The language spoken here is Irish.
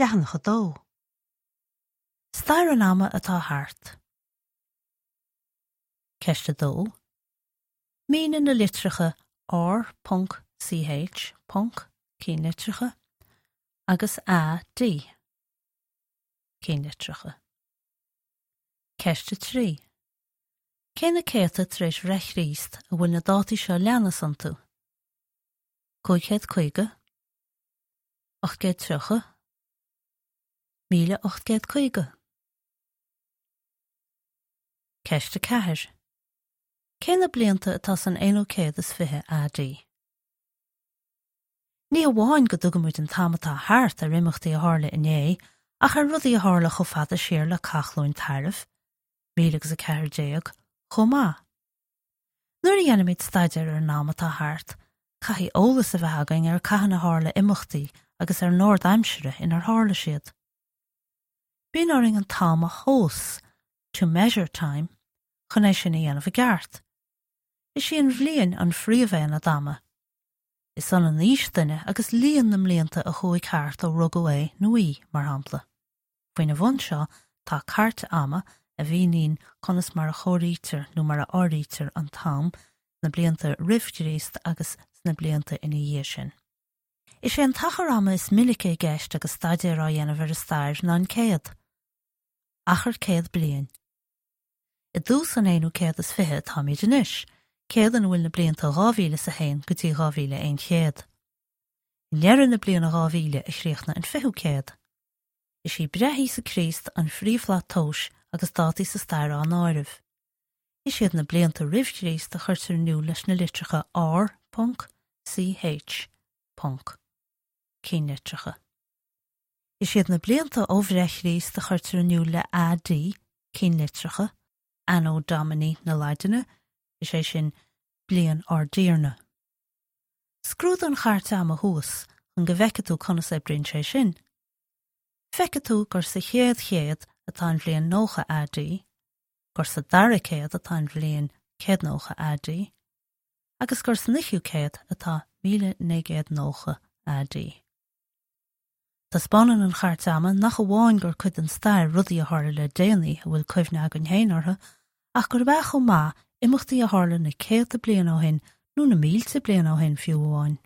Leathanach 2. Stair an ama atá thart. Ceist 2. Mínigh na litreacha R. Ch. cinnlitreacha, agus AD. cinnlitreacha. Ceist 3. Cé na céadta tar éis bhreith Chríost a bhfuil na dátaí seo leanas iontu? 550, 830, 1850. Ceist 4. Cé na blianta atá san aonú céad is 20 AD? Ní hamháin go dtugaimid an t-am atá thart ar imeachtaí a tharla inné, ach ar rudaí a tharla chomh fada siar le Cath Chluain Tairbh, 1014, chomh maith. Nuair a dhéanaimid staidéar ar an am atá thart, caithfidh eolas a bheith againn ar cathain a tharla imeachtaí agus ar an ord aimsire inar tharla siad. Bíonn orainn an t-am a thomhas, to measure time, chun é sin a dhéanamh i gceart. Is í an bhliain an phríomhaonad ama. Is ionann aois duine agus líon na mblianta a chuaigh thart ó rugadh é nó í, mar shampla. Faoina bhun seo tá cairt ama a mhíníonn conas mar a chomhairítear nó mar a áirítear an t-am sna blianta roimh Chríost agus sna blianta ina dhiaidh sin. Is é an t-achar ama is minice i gceist agus staidéar á dhéanamh ar an stair ná an céad. Achar 100 bliain. I dtús an aonú céad is 20 atáimid anois, céad ina bhfuil na blianta 2001 go dtí 2100. I ndeireadh na bliana 2000 a chríochnaigh an fichiú céad. Is í breith Íosa Críost an phríomhshlat tomhais agus dátaí sa stair á n-áireamh. Is iad na blianta roimh Chríost a chuirtear in iúl leis na litreacha R. Ch. Cinnlitreacha. Is iad na blianta ó bhreith Chríost a chuirtear in iúl le AD, cinnlitreacha, Anno Domini na Laidine, is é sin, bliain ár dTiarna. Scrúdaigh an chairt ama thuas chun go bhfeicfidh tú conas a oibríonn sé sin. Feicfidh tú gur sa chéad chéad atá an bhliain 90 AD, gur sa dara céad atá an bhliain 190 AD, agus gur san fhichiú céad atá 1990 AD. Taispeánann an chairt ama nach amháin gur cuid den stair rudaí a tharla le déanaí a bhfuil cuimhne againn féin orthu, ach gurb ea chomh maith imeachtaí a tharla na céadta bliain ó shin nó na mílte bliain ó shin fiú amháin.